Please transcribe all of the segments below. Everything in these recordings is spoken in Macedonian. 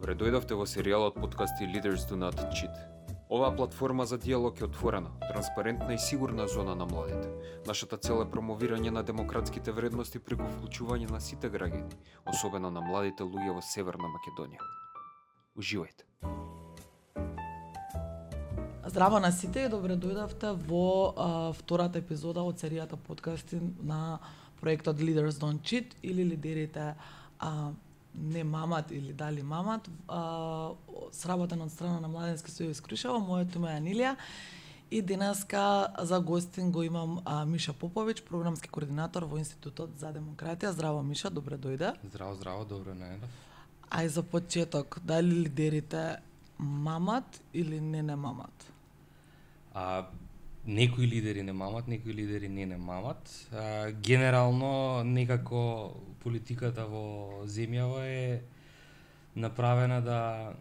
Добре дојдовте во серијалот подкасти Leaders Do Not Cheat. Оваа платформа за диалог е отворена, транспарентна и сигурна зона на младите. Нашата цел е промовирање на демократските вредности преку вклучување на сите граѓани, особено на младите луѓе во Северна Македонија. Уживајте. Здраво на сите и добре дојдовте во втората епизода од серијата подкасти на проектот Leaders Don't Cheat или лидерите не мамат или дали мамат, сработен од страна на Младенски сојуз Крушево. Моето име е Анилија и денеска за гостин го имам Миша Поповиќ, програмски координатор во Институтот за демократија. Здраво Миша, добре дојде. Здраво, добро најдов. Ај за почеток, дали лидерите мамат или не мамат? Некои лидери не мамат, некои лидери не мамат. Генерално, некако политиката во земјава е направена да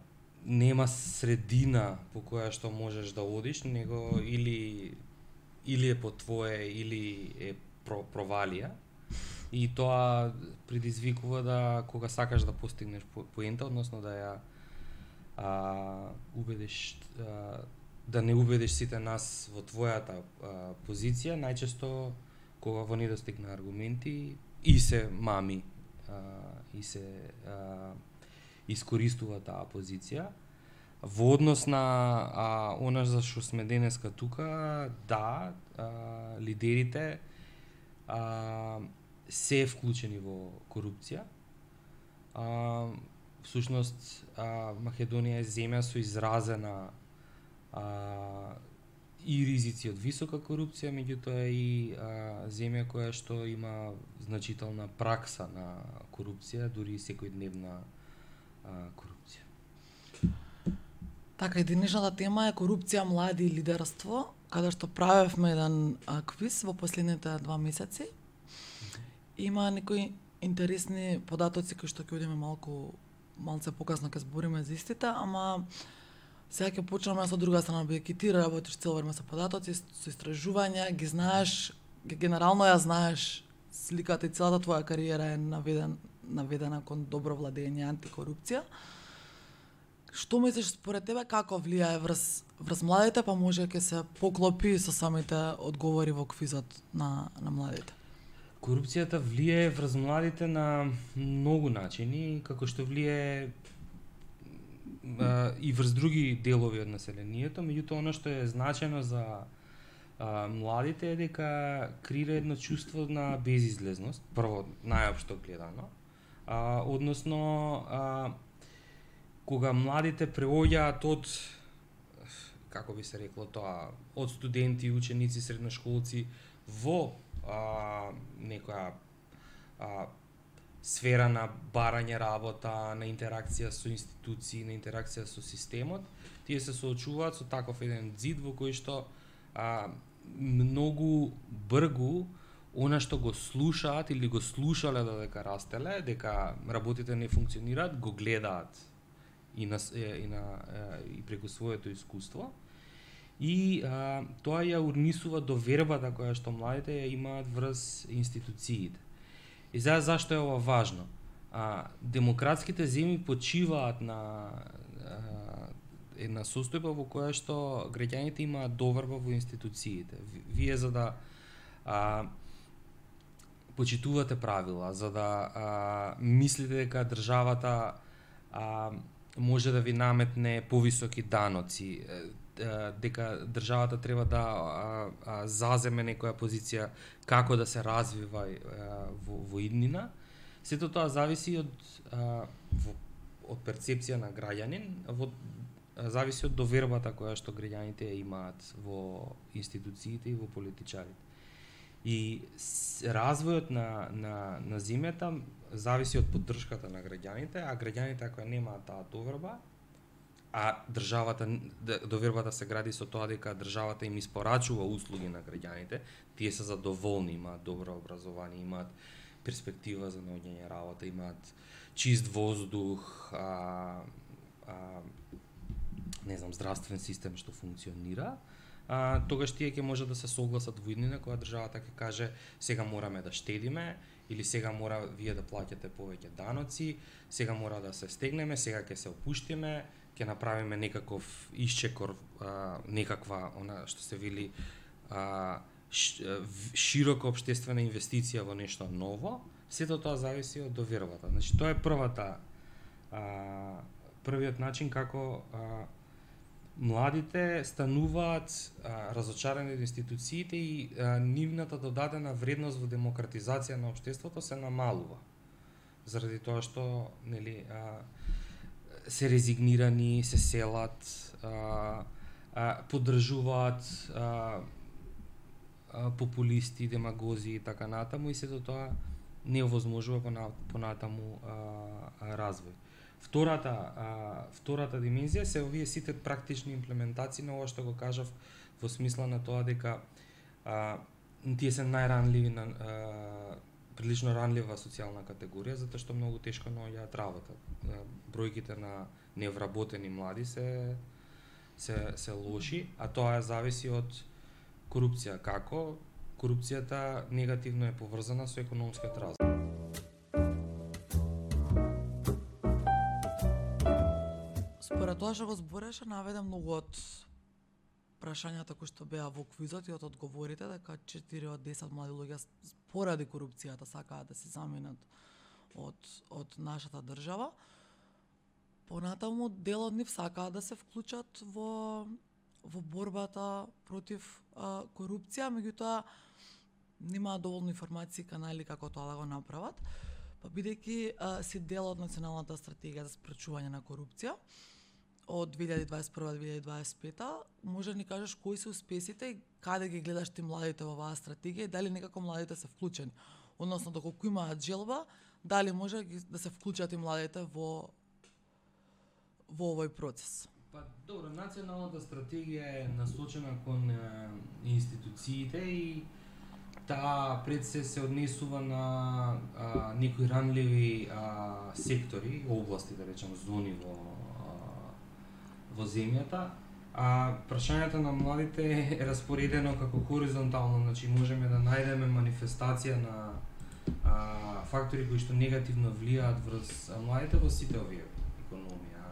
нема средина по која што можеш да одиш, него или е по твое, или е провалија. И тоа предизвикува да кога сакаш да постигнеш поента, односно да ја убедиш да не убедиш сите нас во твојата позиција, најчесто кога во недостиг на аргументи и се мами и се искористува таа позиција. Во однос на она за што сме денеска тука, да, лидерите се вклучени во корупција. Всушност, Македонија е земја со изразена и ризици од висока корупција, меѓутоа и земја која што има значителна пракса на корупција, дури и секојдневна корупција. Така, и денешната тема е корупција, млади и лидерство, каде што правевме еден квиз во последните 2 месеци. Има некои интересни податоци кои што ќе одиме малце покасно ќе збориме за истите, ама сега ќе почнеме со друга страна, бидејќи ти работиш цел време со податоци, со истражувања, ги знаеш, генерално ја знаеш сликата и целата твоја кариера е наведена кон добро владење антикорупција. Што мислиш според тебе како влијае врз младите, па може ќе се поклопи со самите одговори во квизот на младите? Корупцијата влијае врз младите на многу начини, како што влијае и врз други делови од населението, меѓутоа она што е значено за младите е дека креира едно чувство на безизлезност, прво најопшто гледано, односно кога младите преоѓаат од, како би се рекло тоа, од студенти, ученици, средношколци во некоја сфера на барање работа, на интеракција со институции, на интеракција со системот, тие се соочуваат со таков еден зид во кој што многу бргу она што го слушаат или го слушале додека растеле, дека работите не функционираат, го гледаат и преку своето искуство. И тоа ја урнисува довербата која што младите ја имаат врз институциите. И сега зашто е ова важно? Демократските земји почиваат на една состојба во која што граѓаните имаат доверба во институциите. Вие за да почитувате правила, за да мислите дека државата може да ви наметне повисоки даноци, дека државата треба да заземе некоја позиција како да се развива во иднина. Сето тоа зависи од перцепција на граѓанин, зависи од довербата која што граѓаните имаат во институциите и во политичарите. И развојот на земјата зависи од поддршката на граѓаните, а граѓаните ако немаат таа доверба, а довербата се гради со тоа дека државата им испорачува услуги на граѓаните, тие се задоволни, имаат добро образование, имаат перспектива за наоѓање работа, имаат чист воздух, здравствен систем што функционира, тогаш тие ќе може да се согласат во иднина кога државата ќе каже сега мораме да штедиме или сега мора вие да плаќате повеќе даноци, сега мора да се стегнеме, сега ќе се опуштиме, ќе направиме некаков исчекор, некаква она што се вели широка општествена инвестиција во нешто ново. Сето тоа зависи од довербата. Значи тоа е првиот начин како младите стануваат разочарани од институциите и нивната додадена вредност во демократизација на општеството се намалува. Заради тоа што нели се резигнирани, се селат, поддржуваат популисти, демагози и така натаму, и сето тоа не овозможува понатаму развој. Втората димензија се овие сите практични имплементации на ова што го кажав, во смисла на тоа дека тие се најранливи на прилично ранлива социјална категорија, затоа што многу тешко наоѓаат работа. Бројките на невработени млади се лоши, а тоа зависи од корупција. Како? Корупцијата негативно е поврзана со економскиот развој. Според тоа што го збореше, наведе многу од прашањата кои што беа во квизот и од одговорите, дека 4 од 10 млади луѓе поради корупцијата сакаат да се заминат од нашата држава. Понатаму дел од нив сакаат да се вклучат во борбата против корупција, меѓутоа немаат доволно информации и канали како тоа да го направат. Па бидејќи си дел од националната стратегија за спречување на корупција од 2021-2025, може да ни кажеш кои се успесите и каде ги гледаш ти младите во оваа стратегија и дали некако младите се вклучени, односно доколку имаат желба, дали може да се вклучат и младите во овој процес? Па добро, националната стратегија е насочена кон институциите и таа пред се однесува на некои ранливи сектори, области, да речем, зони во земјата. Прашањето на младите е распоредено како хоризонтално, значи можеме да најдеме манифестација на фактори кои што негативно влијаат врз младите во сите овие: економија,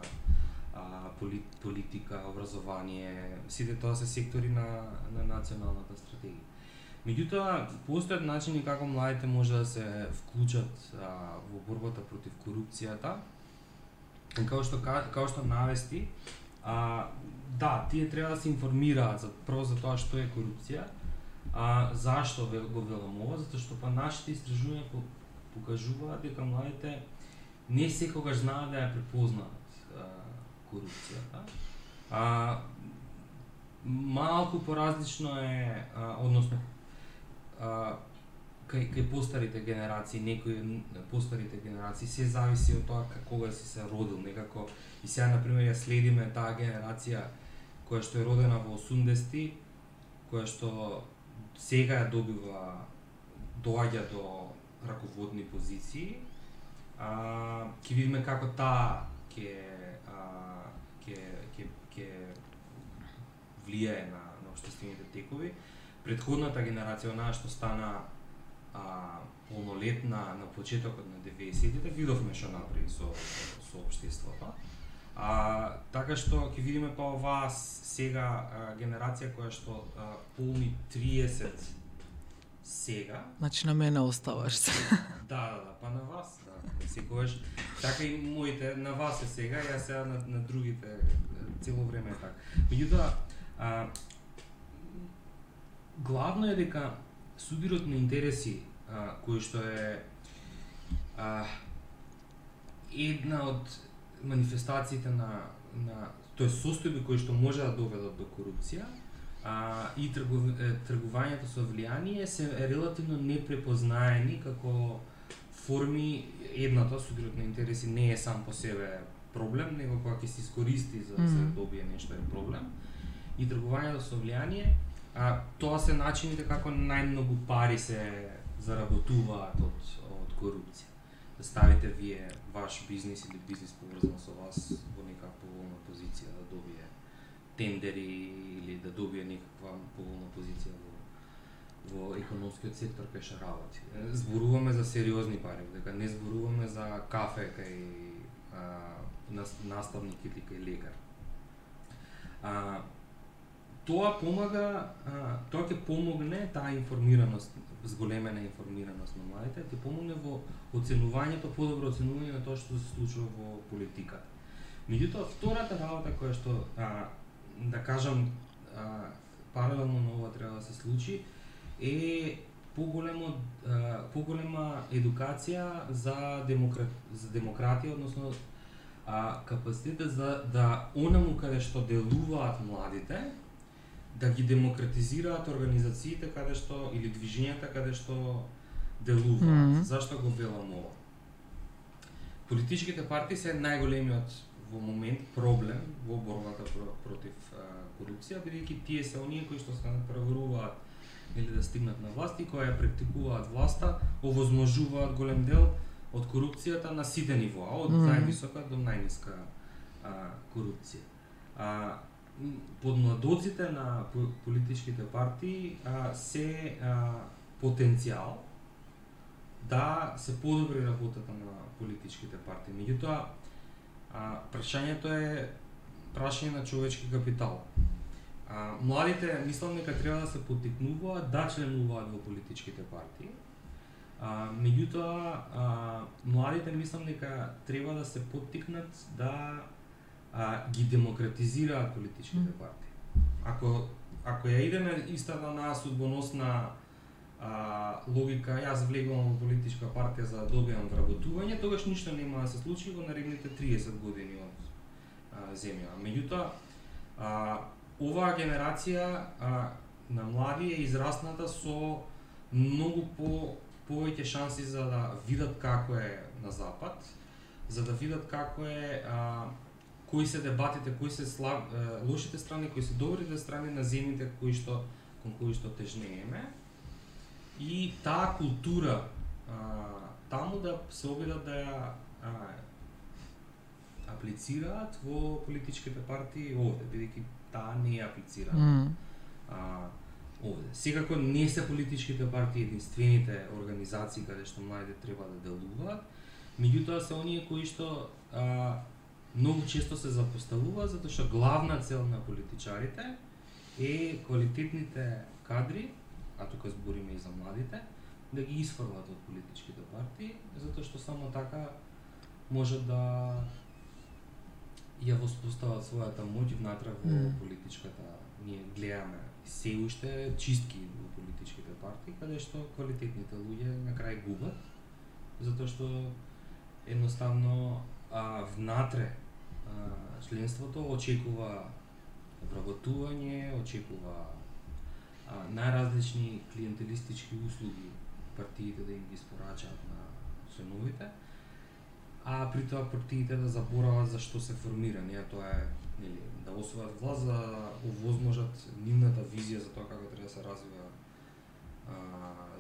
политика, образование, сите тоа се сектори на националната стратегија. Меѓутоа, постојат начини како младите може да се вклучат во борбата против корупцијата. Као што навести, да, тие треба да се информираат прво за тоа што е корупција, зашто го велам ова, затоа што па нашите истражувања покажуваат дека младите не секогаш знаат да ја препознаат корупцијата. Малку поразлично е, односно кај постарите генерации, некои постарите генерации се зависи од тоа кога си се родил, некако. И сега например ја следиме таа генерација која што е родена во 80-ти, која што сега ја доаѓа до раководни позиции. Ќе видиме како таа ќе влијае на општествените текови. Предходната генерација, онаа што стана полнолетна на почетокот на 90-тите, видовме што направи со општеството. Така што ќе видиме па оваа сега генерација која што полни 30 сега. Значи на мене оставаш се. Да, па на вас, да. Секогаш така и моите на вас е сега, јас сега на другите цело време е така. Меѓутоа, главно е дека судирот на интереси, кој што е една од манифестациите тој состојби кои што може да доведат до корупција, и тргувањето со влијание се релативно непрепознаени како форми. Едната, судирот на интереси, не е сам по себе проблем, него кога ќе се искористи за да се добие нешто е проблем. И тргувањето со влијание, тоа се начините како најмногу пари се заработуваат од корупција. Да ставите вие ваш бизнис или бизнис поврзан со вас во нека поволна позиција да добие тендери или да добие некаква поволна позиција во економскиот сектор кај што работи. Зборуваме за сериозни пари, дека не зборуваме за кафе кај наставник или кај лекар. Тоа помага, тоа ќе помогне таа информираност, зголемена информираност на младите, ќе помогне во оценувањето, подобро оценување на тоа што се случува во политиката. Меѓутоа, втората работа која што, да кажам, паралелно на ова треба да се случи, е поголема едукација за демократија, односно капацитет да онаму каде што делуваат младите, да ги демократизираат организациите каде што или движењата каде што делуваат. Зашто го велам ова? Политичките партии се најголемиот во момент проблем во борбата против корупција, бидејќи тие се оние кои што се направуваат или да стигнат на власт и кои ја практикуваат власта, овозможуваат голем дел од корупцијата на сите нивоа, од највисока до најниска корупција. Подмладоците на политичките партии се потенцијал да се подобри работата на политичките партии. Меѓутоа, прашањето е прашање на човечки капитал. Младите мислам дека треба да се поттикнуваат да членуваат во политичките партии. Меѓутоа, младите мислам дека треба да се поттикнат да ги демократизираат политичките партии. Ако ја идеме истата на судбоносна логика, јас влегувам во политичка партија за да добиам вработување, тогаш ништо нема да се случи во наредните 30 години од земја. Меѓутоа, оваа генерација на млади е израсната со многу повеќе шанси за да видат како е на запад, за да видат како е кои се дебатите, кои се лошите страни, кои се добрите страни на земјите кон кои што тежнееме. И таа култура таму да се обидат да ја аплицираат во политичките партии овде, бидејќи таа не ја аплицираат овде. Секако не се политичките партии единствените организации каде што младите треба да делуваат, меѓутоа се оние кои што многу често се запоставуваат, затоа што главна цел на политичарите е квалитетните кадри, а тука збориме и за младите, да ги исфрлат од политичките партии, затоа што само така може да ја воспостават својата моќ внатре во политичката. Ние гледаме се уште чистки во политичките партии, каде што квалитетните луѓе на крај губат, затоа што едноставно внатре членството очекува вработување, очекува најразлични клиентелистички услуги партиите да им ги испорачаат на членовите, а при тоа партиите да заборават за што се формирани, тоа е да освојат власт за да овозможат нивната визија за тоа како треба да се развива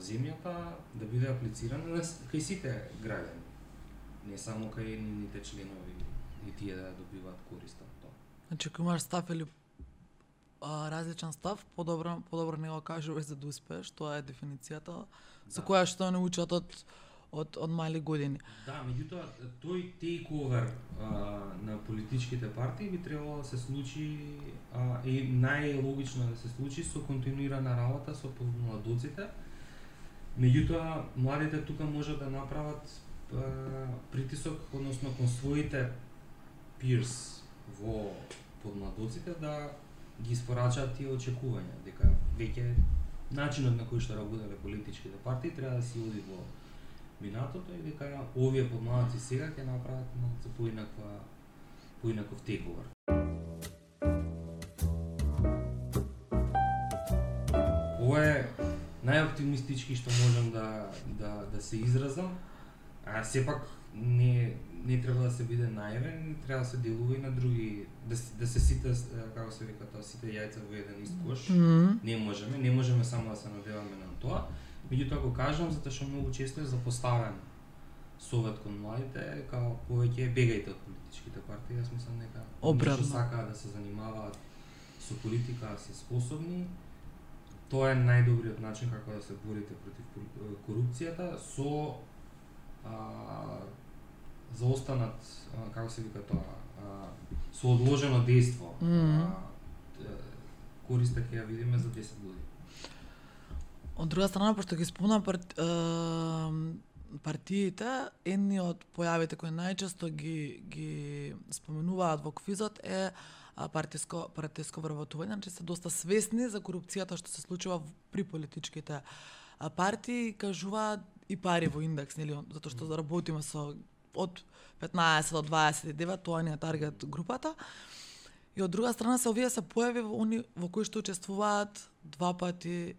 земјата, да биде аплицирана кај сите граѓани, не само кај нивните членови и тие да добиваат корист од тоа. Значи, ако имаш став или различен став, подобро не го кажуваш за да успееш, тоа е дефиницијата со која што не учат од мали години. Да, меѓутоа тој тейковер на политичките партии би требало да се случи и најлогично да се случи со континуирана работа со младоците. Меѓутоа младите тука може да направат притисок, односно кон своите peers во подмладоците да ги испорачаат тие очекувања, дека веќе начинот на кој што работеле политичките партии треба да се оди во минатото и дека овие подмладоци сега ќе направат малку поинаков тейковер. Ова е најоптимистички што можам да се изразам, а сепак не треба да се биде наивен, треба да се делува и на други, да се сите, како се вика тоа, сите јајца во еден ист кош. Не можеме само да се надеваме на тоа. Меѓутоа го кажам затоа што многу често е запоставен совет кон младите, као повеќе бегајте од политичките партии, јас мислам дека што сакаат да се занимаваат со политика се способни. Тоа е најдобриот начин како да се борите против корупцијата со заостанат, како се вика тоа, со одложено дејство. Користа ќе ја видиме за 10 години. Од друга страна, пошто ги спомна партиите, едни од појавите кои најчесто ги споменуваат во квизот е партиско вработување, значи се доста свесни за корупцијата што се случува при политичките партии, кажуваат и пари во индекс, нели, затоа што работиме со од 15 до 29, тоа ни е таргет групата. И од друга страна овие се појави во кои што учествуваат 2 пати,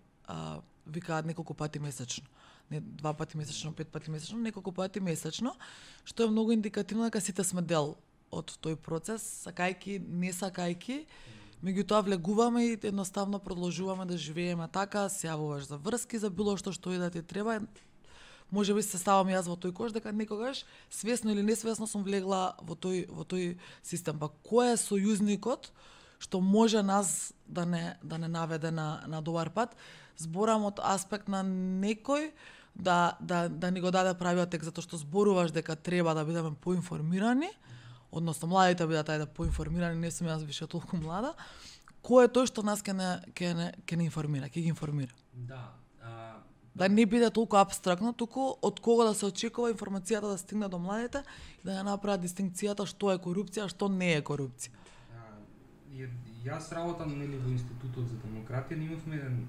викаат неколку пати месечно. Не 2 пати месечно, 5 пати месечно, неколку пати месечно, што е многу индикативно дека сите сме дел од тој процес, сакајки, не сакајки, меѓутоа влегуваме и едноставно продолжуваме да живееме така, се јавуваш за врски, за било што и да ти треба. Може би се ставам јас во тој кош, дека некогаш, свесно или несвесно, сум влегла во тој систем. Па кој е сојузникот што може нас да не наведе на добар пат? Зборам од аспект на некој да ни го даде правиот текст, затоа што зборуваш дека треба да бидеме поинформирани, односно младите бидат поинформирани, не сум јас више толку млада. Кој е тој што нас ќе не информира, ќе ги информира? Да не биде толку апстрактно, туку од кого да се очекува информацијата да стигне до младите и да ја направат дистинкцијата што е корупција, што не е корупција. Јас работам во Институтот за демократија, имавме еден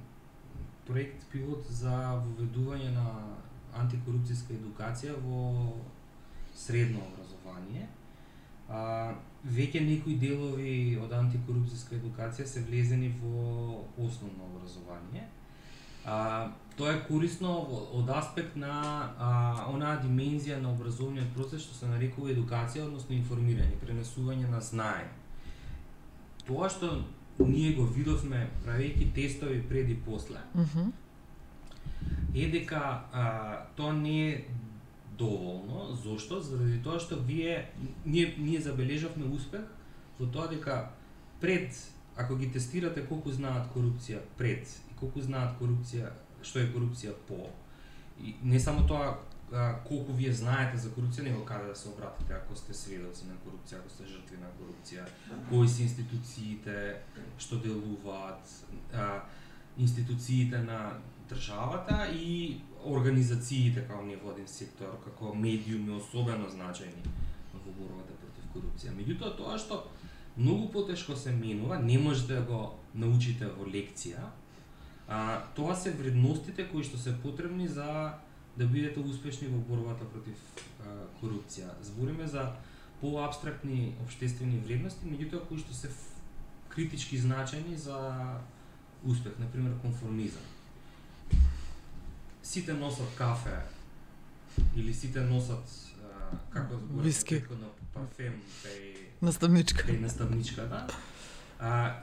проект пилот за воведување на антикорупцијска едукација во средно образование. Веќе некои делови од антикорупцијска едукација се влезени во основно образование. Тоа е корисно од аспект на онаа димензија на образовниот процес што се нарекува едукација, односно информирање, пренесување на знаење. Тоа што ние го видовме правејќи тестови пред и после, е дека тоа не е доволно. Зошто? Заради тоа што ние забележавме успех во тоа дека пред, ако ги тестирате колку знаат корупција пред и колку знаат корупција, што е корупција по, и не само тоа колку вие знаете за корупција, него каде да се обратите ако сте сведоци на корупција, ако сте жртви на корупција, кои се институциите што делуваат, институциите на државата и организациите како невладин сектор, како медиуми особено значајни во борбата против корупција. Меѓутоа тоа што многу потешко се менува, не можете да го научите во лекција, тоа се вредностите кои што се потребни за да бидете успешни во борбата против корупција. Збориме за поапстрактни општествени вредности, меѓутоа кои што се критички значајни за успех, например конформизам. Сите носат кафе или сите носат како виски, на парфем наставничка, да?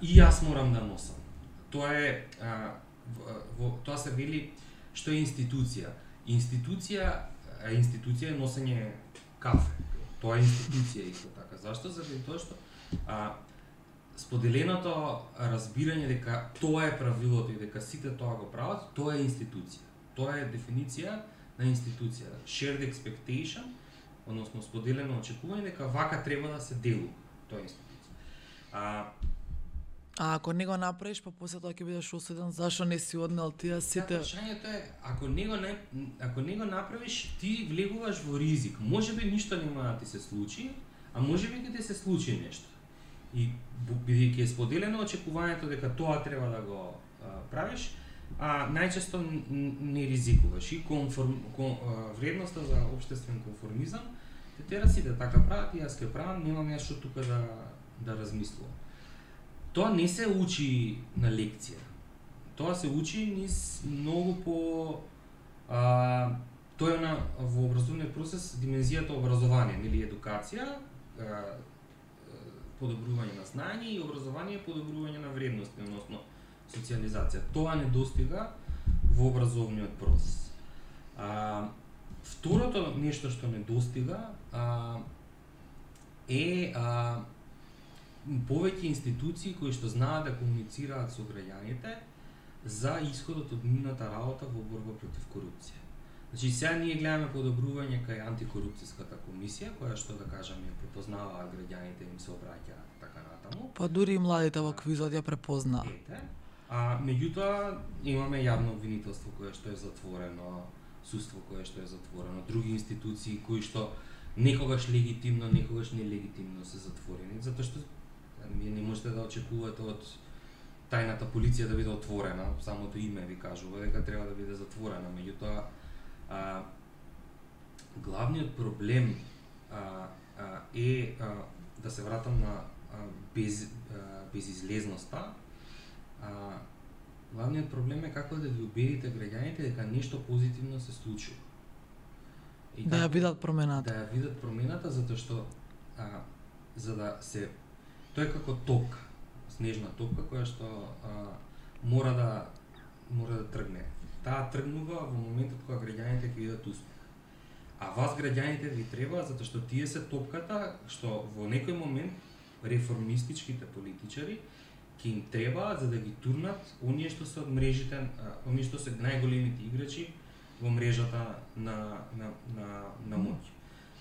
И јас морам да носам. Тоа е тоа се вели што е институција. Институција е носење кафе. Тоа е институција исто така. Зашто? Заради тоа што споделеното разбирање дека тоа е правилото и дека сите тоа го прават, тоа е институција. Тоа е дефиниција на институција. Shared expectation, односно споделено очекување дека вака треба да се делува. Тоа е институција. Ако не го направиш, па после тоа ќе бидеш осуден, зашо не си однел тие сите? Прашањето е, ако не го направиш, ти влегуваш во ризик. Можеби ништо нема да ти се случи, а можеби ќе ти се случи нешто. И бидејќи е споделено очекувањето дека тоа треба да го правиш, најчесто не ризикуваш. И вредноста за општествен конформизам те тера сите така прават и јас ќе правам, немам јас што тука да размислувам. Тоа не се учи на лекција. Тоа се учи низ многу по тоа е во образовниот процес димензијата образование, нели едукација, подобрување на знаење и образование подобрување на вредности, односно социализација. Тоа не достига во образовниот процес. Второто нешто што не достига е повеќе институции кои што знаат да комуницираат со граѓаните за исходот од нивната работа во борба против корупција. Значи, сега ние гледаме подобрување кај антикорупцијската комисија, која што да кажеме препознаваат граѓаните, им се обраќаат така натаму. Па дури и младите во квизот ја препознаа. Ете. А меѓутоа имаме јавно обвинителство кое што е затворено, судство кое што е затворено, други институции кои што некогаш легитимно, некогаш нелегитимно се затворени, затоа што вие не можете да очекувате од тајната полиција да биде отворена, самото име ви кажува дека треба да биде затворена, меѓутоа главниот проблем е да се вратам на безизлезноста. Главниот проблем е како да ги убедите граѓаните дека нешто позитивно се случува. И да ја видат промената. Да ја видат промената, затоа што за да се тоа е како топка, снежна топка која што мора да тргне. Таа тргнува во моментот кога граѓаните ќе видат успех. А вас граѓаните ви треба затоа што тие се топката што во некој момент реформистичките политичари ќе им треба за да ги турнат оние што се од мрежите, оние што се најголемите играчи во мрежата на моќ.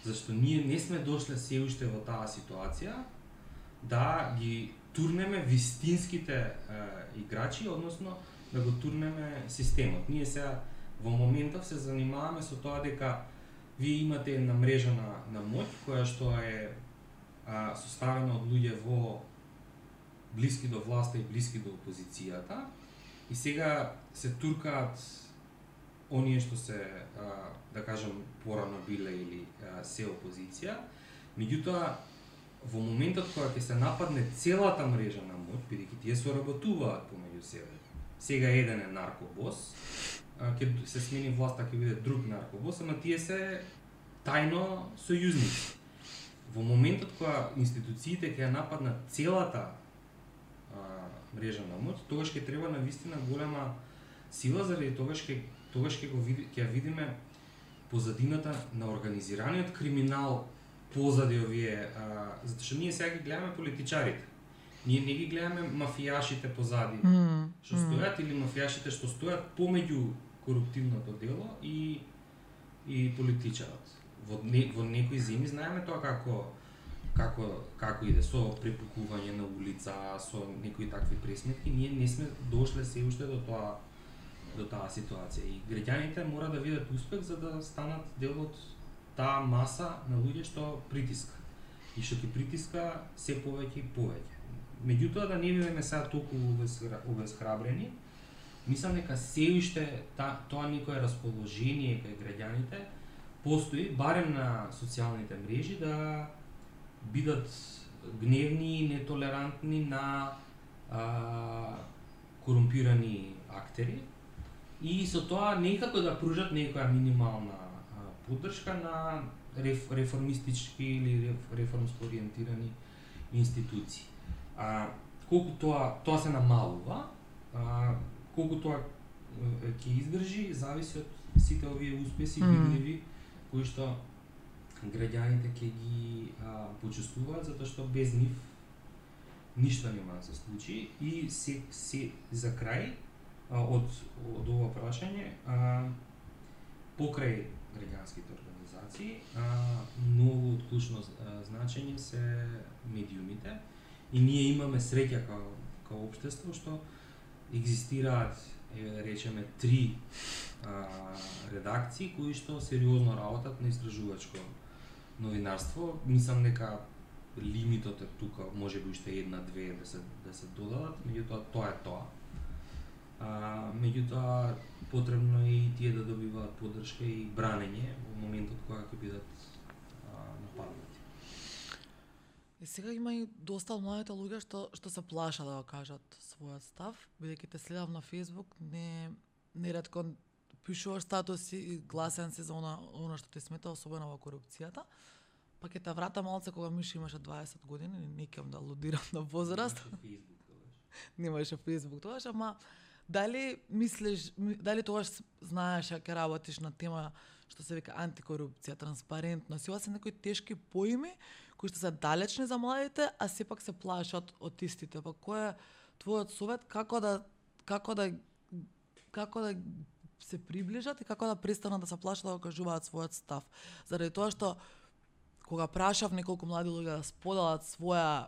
Зашто ние не сме дошле се уште во таа ситуација да ги турнеме вистинските играчи, односно да го турнеме системот. Ние сега во моментов се занимаваме со тоа дека вие имате една мрежа на моќ која што е составена од луѓе во блиски до власта и блиски до опозицијата и сега се туркаат оние што се да кажам порано биле или се опозиција. Меѓутоа во моментот кога ќе се нападне целата мрежа на моќ, бидејќи тие соработуваат помеѓу себе. Сега еден е наркобос, ќе се смени власта, ќе биде друг наркобос, ама тие се тајно сојузници. Во моментот кога институциите ќе нападнат целата мрежа на моќ, тогаш ќе треба навистина голема сила, заради тогаш ќе видиме позадината на организираниот криминал позади овие, затоа што ние сега ги гледаме политичарите. Ние не ги гледаме мафијашите позади што стојат или мафијашите што стојат помеѓу коруптивното дело и политичарот. Во некои земји знаеме тоа како иде со препукување на улица, со некои такви пресметки, ние не сме дошле се уште до таа ситуација и граѓаните мора да видат успех за да станат дел од таа маса на луѓе што притиска и што ќе притиска се повеќе и повеќе. Меѓутоа да не бидеме сега толку обезхрабрени, мислам дека се уште тоа некое расположение кај граѓаните постои, барем на социјалните мрежи, да бидат гневни и нетолерантни на корумпирани актери и со тоа некако да пружат некоја минимална поддршка на реформистички или реформско ориентирани институции. Колку тоа се намалува, колку тоа ќе издржи, зависи од сите овие успеси видливи кои што граѓаните ќе ги почувствуваат, затоа што без нив ништо нема да се случи. И се за крај од ова прашање, покрај граѓанските организации, многу од клучно значење се медиумите и ние имаме среќа као општество што екзистираат, речеме, 3 редакции кои што сериозно работат на истражувачко новинарство. Мислам дека лимитот е тука, можеби уште 1-2 да се додадат, меѓутоа тоа е тоа. Меѓутоа потребно е и тие да добиваат поддршка и бранење во моментот кога ќе бидат нападнати. И сега има и доста младите луѓе што се плашат да го кажат својот став, бидејќи те следам на Facebook, неретко пишуваш статуси и гласен си за она што ти смета, особено во корупцијата. Па ќе те врата малце кога Мишо имаше 20 години, не кем да алудирам на возраст. Немаше Facebook тогаш, ама дали мислиш, дали тогаш знаеш ќе работиш на тема што се вика антикорупција, транспарентност, ова се некои тешки поими кои што се далечни за младите, а сепак се плашат од истите. Па кој е твојот совет како да се приближат и како да престанат да се плашат да го кажуваат својот став? Заради тоа што кога прашав неколку млади луѓе да споделат своја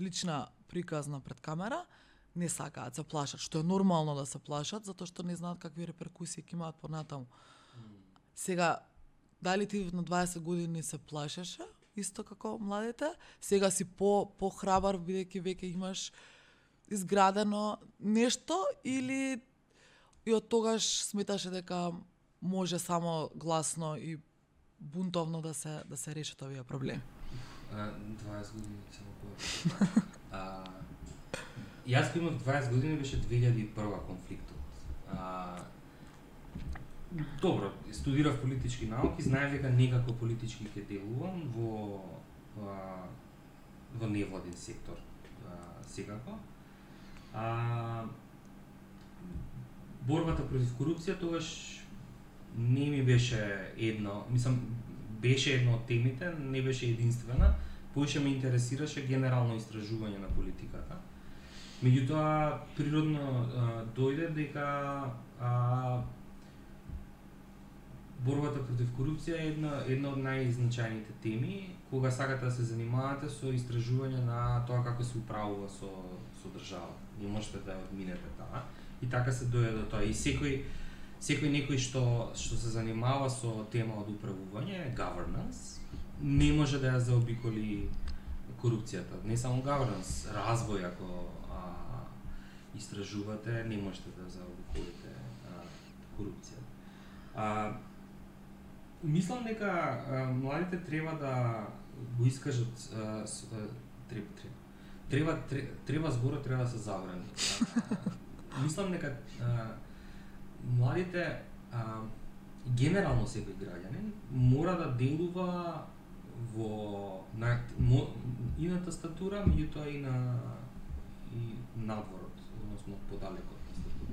лична приказна пред камера, не сакаат, се плашат, што е нормално да се плашат, затоа што не знаат какви реперкусии ќе имаат понатаму. Сега, дали ти на 20 години се плашеше, исто како младите, сега си по-храбар, бидејќи веќе имаш изградено нешто, или и од тогаш сметаше дека може само гласно и бунтовно да се решат овие проблеми? 20 години само која. Јас кога имав 20 години беше 2001 конфликтот. Добро, студирав политички науки, знаев дека некако политички ќе делувам во невладин сектор секако. Борбата против корупција тогаш не ми беше беше една од темите, не беше единствена, поише ме интересираше генерално истражување на политиката. Меѓутоа, природно дојде дека борбата против корупција е една од најзначајните теми, кога сакате да се занимавате со истражување на тоа како се управува со државата. Не можете да ја одминете таа. И така се дојде до тоа. И секој некој што се занимава со тема од управување, governance, не може да ја заобиколи корупцијата. Не само governance, развој, ако истражувате, не можете да заобиколите корупцијата. Мислам дека младите треба да го искажат, треба зборот треба да се забрани. Мислам дека младите, генерално секој граѓанин, мора да делува и на тастатура, меѓутоа и надворот, односно подалеку од тастатура.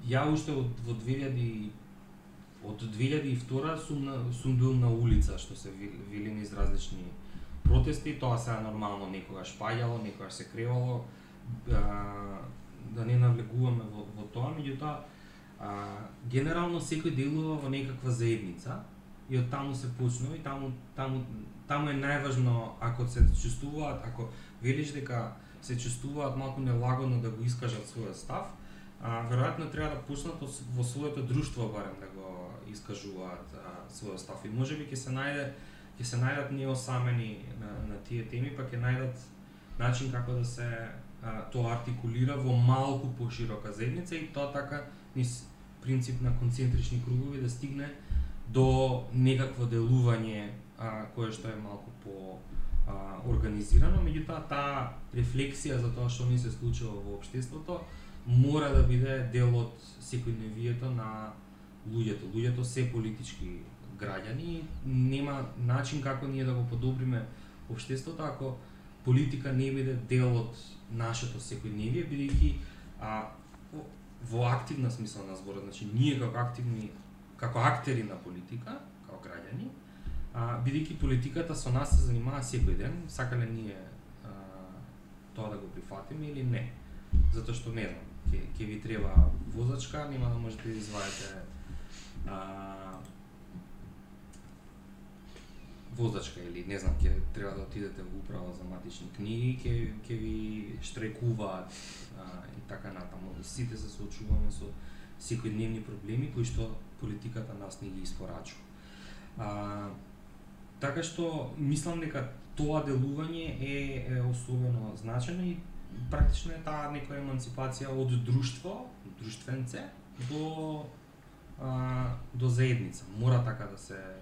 Ја уште од 2002 сум бил на улица, што се вели низ различни протести, тоа се нормално, некогаш паѓало, некогаш се кревало, да не навлегуваме во тоа, меѓутоа генерално секој делува во некаква заедница и од таму се почнува и таму е најважно, ако се чувствуваат, ако велиш дека се чувствуваат малку нелагодно да го искажат својот став, веројатно треба да почнат во своето друштво барем да го искажуваат својот став и можеби ќе се најдат неосамени на тие теми, па ќе најдат начин како да се тоа артикулира во малку поширока заедница и тоа така низ принцип на концентрични кругови да стигне до некакво делување кое што е малку по организирано, меѓутоа таа рефлексија за тоа што ни се случува во општеството мора да биде дел од секојдневието на луѓето. Луѓето се политички граѓани, нема начин како ние да го подобриме општеството ако политика не биде дел од нашето секојдневие, бидејќи во активна смисла на зборот, значи ние како актери на политика, како граѓани, бидејќи политиката со нас се занимава секој ден, сакале ние тоа да го прифатиме или не. Затоа што не знам, ќе ви треба возачка, нема да можете да извадите возачка или не знам, ќе треба да отидете во управа за матични книги, ќе ви штрекуваат и така натаму. Сите се соочуваме со секојдневни проблеми кои што политиката нас не ги испорачува. Така што мислам дека тоа делување е особено значено и практично е таа некоја емансипација од друштвенце до заедница. Мора така да се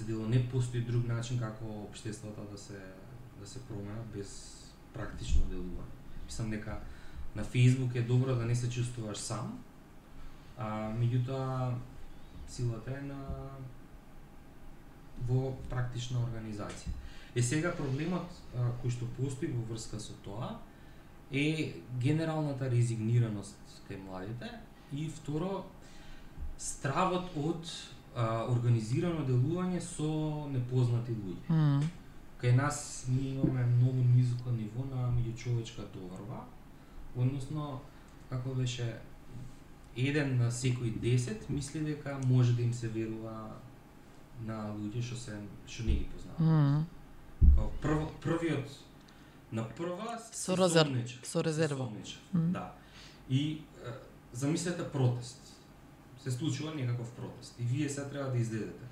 делува, не постои друг начин како општеството да се променат без практично делување. Мислам дека на Facebook е добро да не се чувствуваш сам, меѓутоа силата е во практична организација. Сега проблемот кој што постои во врска со тоа е генералната резигнираност кај младите и второ стравот од организирано делување со непознати луѓе. Кај нас ние имаме многу низко ниво на меѓучовечка доверба, односно, како беше, 1 на секој 10 мисли дека може да им се верува на луѓе што не ги познаваат. Првиот на прва со резерва. Да. И замислете протест. Се случува некаков протест и вие се треба да излезете.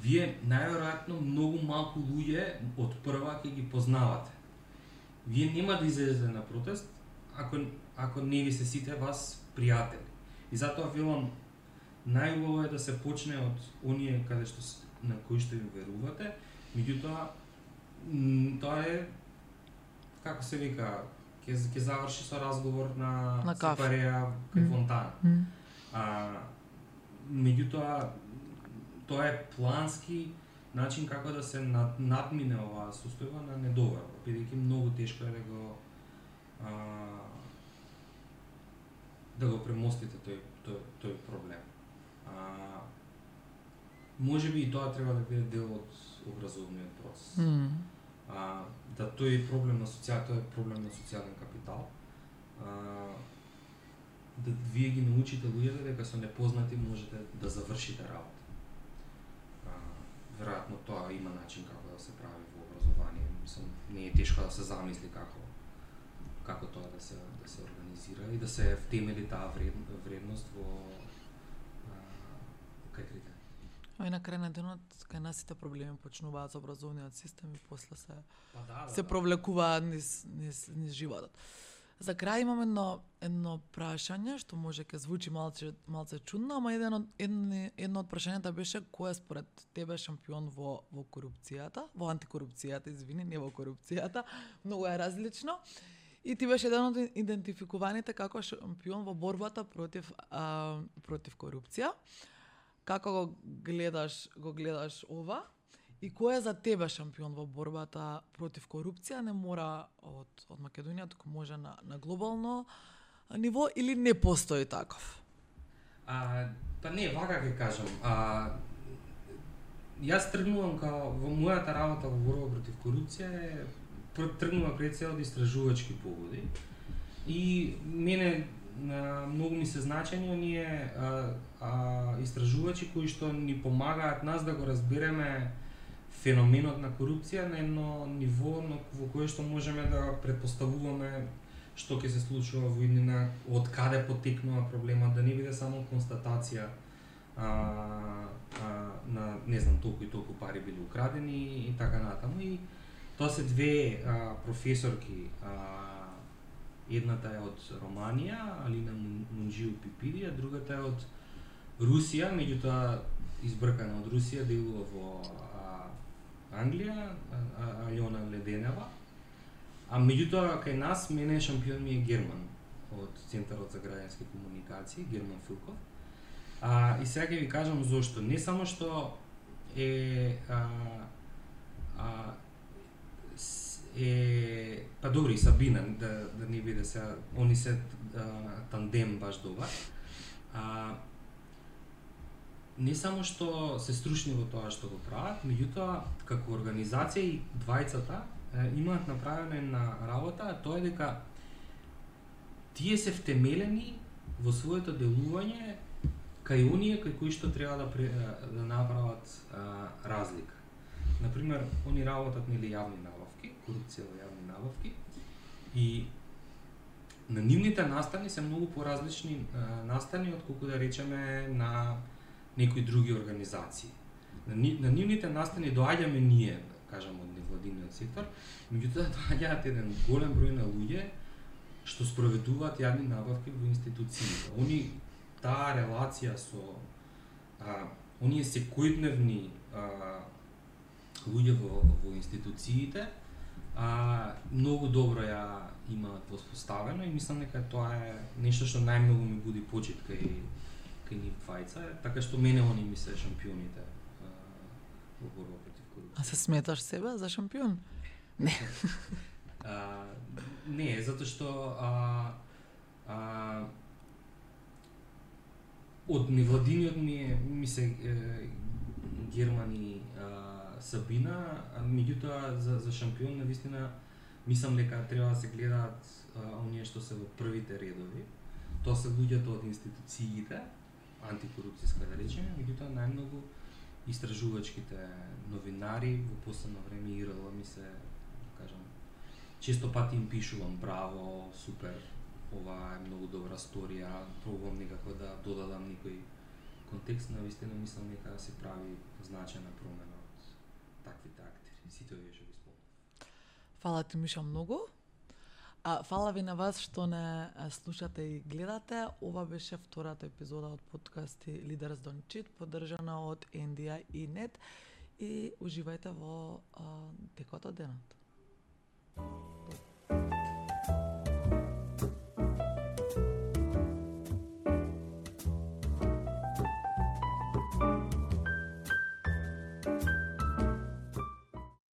Вие најверојатно многу малку луѓе од прва ќе ги познавате. Вие нема да излезете на протест ако не ви се сите вас пријатели. И затоа велам, најубаво е да се почне од оние каде што на кои што им верувате, меѓутоа тоа е, како се вика, ќе заврши со разговор на сепареа кај фонтана. Меѓутоа тоа е плански начин како да се надмине оваа состојба на недоверба, бидејќи многу тешко е да го премостите тој проблем. Може би и тоа треба да биде дел од образовниот процес. Да тој е проблем на социјален капитал. Да вие ги научите луѓето дека со непознати можете да завршите работа. Веројатно тоа има начин како да се прави во образование. Мислам, не е тешко да се замисли како тоа да се организира и да се втемели таа вредност во кај критерии. И на крај на денот, кај нас сите проблеми почнуваат со образовниот систем и после се провлекуваат низ животот. За крај имам едно прашање што може ќе звучи малце чудно, ама едно од прашањата беше кој е според тебе шампион во корупцијата, во антикорупцијата, извини, не во корупцијата, многу е различно. И ти беше еден од идентификуваните како шампион во борбата против корупција. Како го гледаш ова? И кој е за тебе шампион во борбата против корупција? Не мора од Македонија, туку може на глобално ниво или не постои таков? Па не, вака ќе кажам. Јас тргнувам во мојата работа во борба против корупција тргнува пред се од истражувачки погоди. И мене многу ми се значени оние истражувачи кои што ни помагаат нас да го разбереме феноменот на корупција на едно ниво во кое што можеме да предпоставуваме што ќе се случува во иднина, од каде потекнува проблемот, да не биде само констатација на не знам толку и толку пари били украдени и така натаму. И тоа се две професорки, едната е од Романија, Алина Мунџиу Пипиди, а другата е од Русија, меѓутоа избркана од Русија, делува во Англија, Алјона Леденева. А меѓутоа кај нас мене шампион ми е Герман од Центарот за граѓански комуникации, Герман Филков. И сега ќе ви кажам зошто. Не само што па добри, Сабина, да не биде сега, они се тандем баш добар. Не само што се стручни во тоа што го прават, меѓутоа како организација и двајцата имаат направена една работа, а тоа е дека тие се втемелени во своето делување кај оние кај кои што треба да направат разлика. Например, они работат нели јавни набавки, корупција во јавни набавки, и на нивните настани се многу поразлични настани отколку да речеме на некои други организации. На нивните настани доаѓаме ние, кажам, од невладиниот сектор, меѓутоа доаѓаат еден голем број на луѓе што спроведуваат јавни набавки во институциите. Они таа релација со оние секојдневни луѓе во институциите многу добро ја имаат воспоставено и мислам дека тоа е нешто што најмногу ми буди почит кај нив двајца, така што мене они ми се шампионите во борба против корупција. А се сметаш себе за шампион? Не. Не, затоа што Од невладиниот ми се Германи Сабина, меѓутоа за шампион навистина мислам дека треба да се гледаат оние што се во првите редови. Тоа се луѓето од институциите, антикорупцијска да речеме, меѓутоа најмногу истражувачките новинари во последно време ИРЛ ми се, кажам, често пати им пишувам браво, супер, ова е многу добра сторија, пробувам некако да додадам некој контекст, навистина мислам дека се прави значајна промена од таквите актери. Сите овие што ги спомнав. Фала ти, Миша, многу. Фала ви на вас што не слушате и гледате. Ова беше втората епизода од подкасти Leaders Don't Cheat, поддржана од NDI и NET, и уживајте во текот од денот.